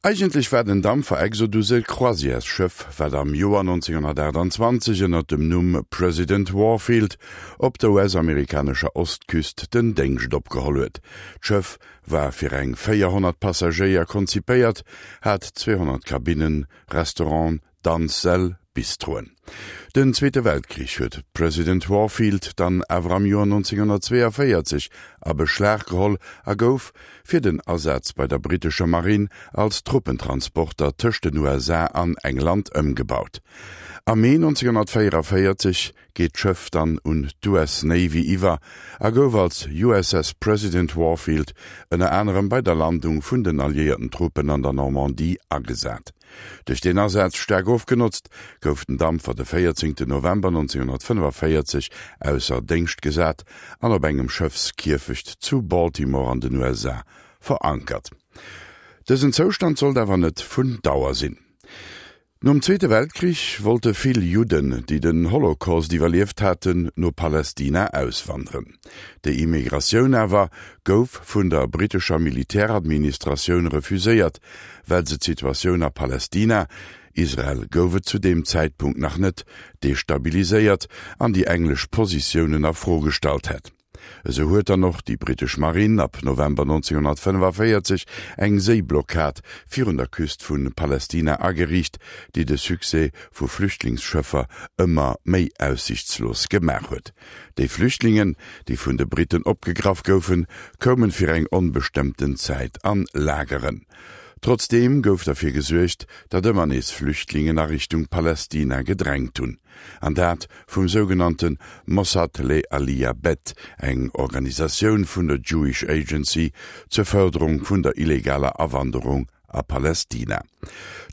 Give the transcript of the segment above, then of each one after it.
Eigentlech war den Dampfer Exodus e Croisièresschëff, wat am Joer 1928 ënner dem Numm President Warfield op der US-amerikanescher Ostküst den Déngscht opgeholl huet. D'Schëff war fir eng 400 Passagéier konzipéiert, hat 200 Kabinnen, Restauranten, Danzsäll, Bistroen. Den Zweete Weltkrich huet d'President Warfield dann awer am Joer 1942 a Beschlag geholl a gouf fir den Asaz bei der brittescher Marinn als Truppentransporter tëscht den USA an England ëmgebaut. Am Mee 1944 geet d'Schëff dann un d'US Navy iwwer a gouf als USS President Warfield ënner anerem bei der Landung vun den alliéierten Truppen an der Normandie agesat. Duerch deen Asaz staark ofgenotzt, gouf den Dampfer de 14 November 1945 ausser Déngscht gesat an op engem Schëffskierfecht zu Baltimore an den USA verankert. Dësen Zoustand sollt awer net vun Dauer sinn. Nom Zweete Weltkrich wollte vill Judden, déi den Holocaust iwwerlieft haten, no Palästina auswanderen. Déi Immigratioun awer gouf vun der brittescher Militäradministratioun refuséiert, well se d'Situatioun a Palästina, Israel gouf et zu deem Zäitpunkt nach net, destabiliséiert an déi englesch Positiounen a Fro gestallt hätt. Esou huet dann och déi brittesch Marinn ab November 1945 eng Séiblockad virun der Küst vu Palästina ageriicht, déi de Succès vu Flüchtlingsschëffer ëmmer méi aussichtslos gemaach huet. Déi Flüchtlingen, déi vun de Britten opgegraff goufen, koumen fir eng onbestëmmten Zäit an Lageren. Trotzdeem gouf derfir gesuergt, datt ëmmer nees Flüchtlingen a Richtung Palästina gedrängt hunn. An dat vum sougenannte Mossad Le Aliyah Bet, eng Organisatioun vun der Jewish Agency zur Fërderung vun der illegaler Awanderung a Palästina.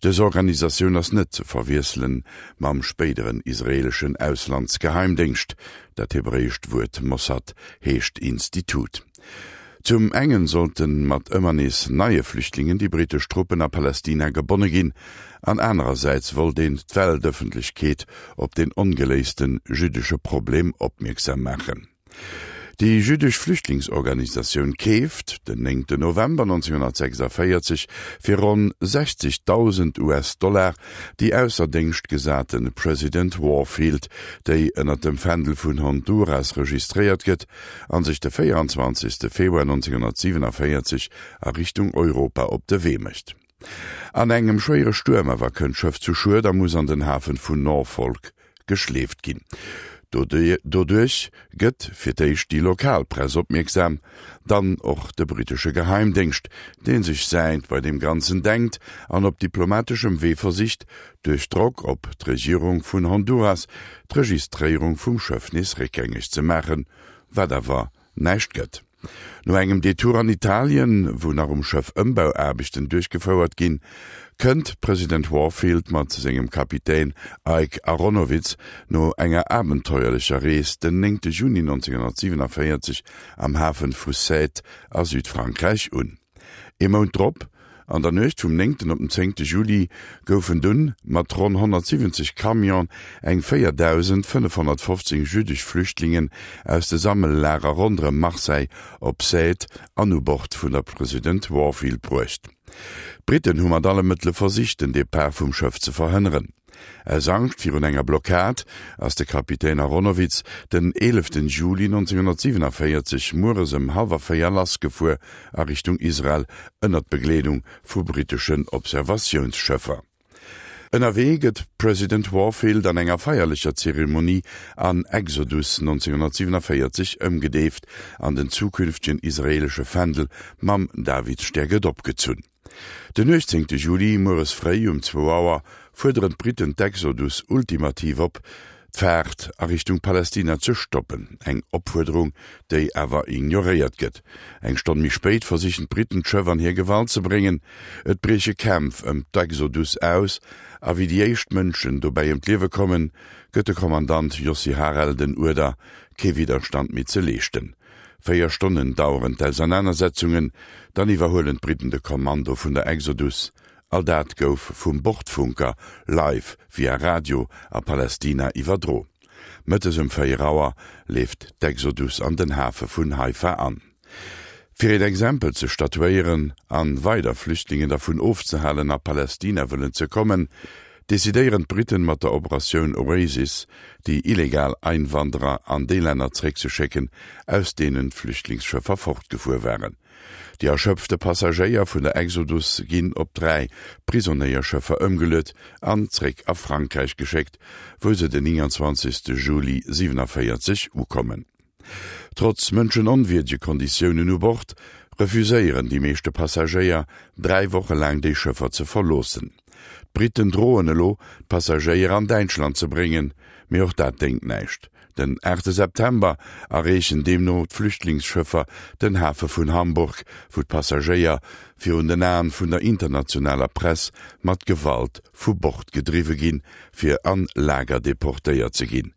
Dës Organisatioun ass net ze verwiesselen mam spéideren israeleschen Auslandsgeheimdéngscht. Dat hebräescht Wuert Mossad heescht Institut. Zum engen sollten mat ëmmer nees neie Flüchtlingen déi brittesch Truppen a Palästina gebonne ginn, an anerersäits wollt een d'Weltëffentlechkeet op den ongeléisten jüddesche Problem opmierksam maachen. Déi jüddesch Flüchtlingsorganisatioun keeft den 9 November 1946 fir ronn 60.000 US-Dollar déi ausser Déngscht gesate President Warfield, déi ënner dem Fändel vun Honduras registréiert gëtt, an sech de 24. Februar 1947 a Richtung Europa op de Wee mécht. An engem schwéiere Stuerm awer kënnt d'Schëff zu Schued a muss an den Hafen vun Norfolk geschleeft ginn. Doduerch gëtt fir d'éischt déi lokal Press opmierksam, dann och de brittesche Geheimdéngscht, dee sech säint bei deem Ganzen denkt an op diplomateschem Wee versicht, duerch Drock op d'Regierung vun Honduras d'Registréierung vum Schëff nees réckgängeg ze maachen, wat awer näischt gëtt. No engem Detour an Italien, wou nach um Schëff Ëmbauaarbechten duerchgefouert ginn, kënnt d'President Warfield mat sengem Kapitän Ike Aronowitz no enger abenteuerlecher Rees den 9 Juni 1947 am Hafen vu Sète a Südfrankräich un. Ee Mount drop, an der Nuecht vum néngten op den zéngte Juli, goufen dunn mat ronn 170 Camionen eng 4.515 jüddesch Flüchtlingen aus de Sammellager ronderëm Marseille op Sète an u Bord vun der President Warfield bruecht. D'Britten hu mat alle Mëttele versicht, den Depart vum Schëff ze verhënneren. Aus Angscht virun enger Blockad ass de Kapitän Aronowitz den 11 Juli 1947 mueres ëm hallwer 4 lassgefuer a Richtung Israel ënnert Begleedung vu britteschen Observatiounsschëffer. Ënnerwee gëtt President Warfield an enger feierlecher Zeremonie an Exodus 1947 ëmgedeeft an den zukünftegen israeelesche Fändel mam Davidsstär gëtt opgezunn. Den 18 Juli mueres fréi um zwou Auer fuerderen d'Britten d'Exodus ultimativ op, d'Faart a Richtung Palästina ze stoppen, eng Opfuerderung, déi awer ignoréiert gëtt. Eng Stonn méi spéit versichen d'Britten d'Schëff an hir Gewalt ze bréngen. Et brieche Kämpf ëm d'Exodus aus, a wéi déi éischt Mënschen dobäi ëm d'Liewe kommen, gëtt de Kommandant Yossi Harel den Uerder, kee Widderstand méi ze leeschten. 4 Stonnen daueren d'Ausernanersetzungen, dann iwwerhuelen d'Britten de Kommando vun der Exodus. All dat gouf vum Bordfunker live via Radio a Palästina iwwerdro. Mëttes um 4 Auer leeft d'Exodus an den Hafe vun Haifa an. Fir een Exempel ze statuéieren an weider Flüchtlingen dervun ofzehalen a Palästina wëllen ze kommen, decidéieren d'Briten mat der Operatioun Oasis déi illegal Einwanderer an déi Länner zréckzeschécken, aus deenen d'Flüchtlingsschëffer fortgefuer waren. Déi erschöpfte Passagéier vun der Exodus ginn op 3 Prisonéierschëffer ëmgeluet an zréck a Frankräich geschéckt, wou se den 29 Juli 47 ukommen. Trotz mënschenonwierdege Konditiounen u Bord, refuséieren déi meeschte Passagéier, 3 Woche laang déi Schëffer ze verloossen. D'Briten droen elo, d'Passagéier an Däitschland ze bréngen, mee och dat déngt näischt. Den 8 September erreechen deemno d'Flüchtlingsschëffer den Hafe vun Hamburg, wou d'Passagéier virun den Aen vun der internationaler Press mat Gewalt vu Bord gedriwwe ginn, fir an Lager deportéiert ze ginn.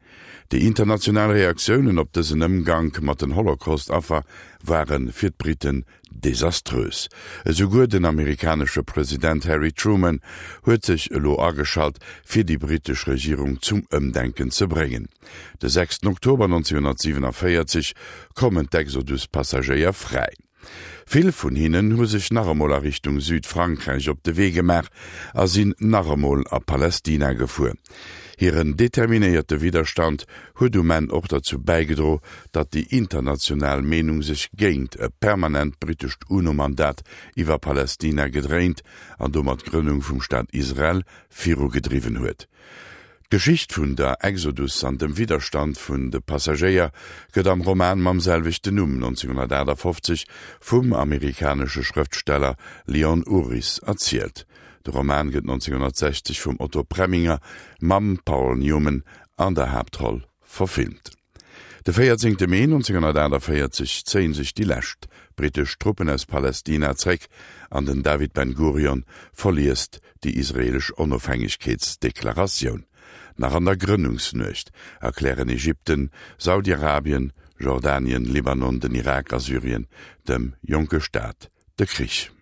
Déi international Reaktiounen op dësen Ëmgank mat den Holocaust-Affer ware fir d'Briten desaströs. Esouguer den amerikanesche President Harry Truman huet sech elo ageschalt, fir déi britesch Regierung zum Ëmdenken ze bréngen. De 6 Oktober 1947 kommen d'Exodus-Passagéier fräi. Vill vun hinnen hu sech nach emol a Richtung Südfrankräich op de Wee gemaach a sinn nach emol a Palästina gefuer. Hiren determinéierte Widderstand huet um Enn och derzou bäigedro, datt déi international Meenung sech géint e permanent brittescht UNO-Mandat iwwer Palästina gedréint an domat d'Grënnung vum Staat Israel virugedriwwen huet. D'Geschicht vun der Exodus an dem Widderstand vun de Passagéier gëtt am Roman mam selwechten Numm 1958 vum amerikanesche Schrëftsteller Leon Uris erzielt. De Roman gëtt 1960 vum Otto Preminger mam Paul Newman an der Haaptroll verfilmt. De 14 Mee 1948 zéie sech déi lescht brittesch Truppen aus Palästina zréck an den David Ben-Gurion verliest déi israeelesch Onofhängegkeetsdeklaratioun. Nach an der Grënnungsnuecht erklären Ägypten, Saudi-Arabien, Jordanien, Libanon, den Irak a Syrien dem jonke Staat de Krich.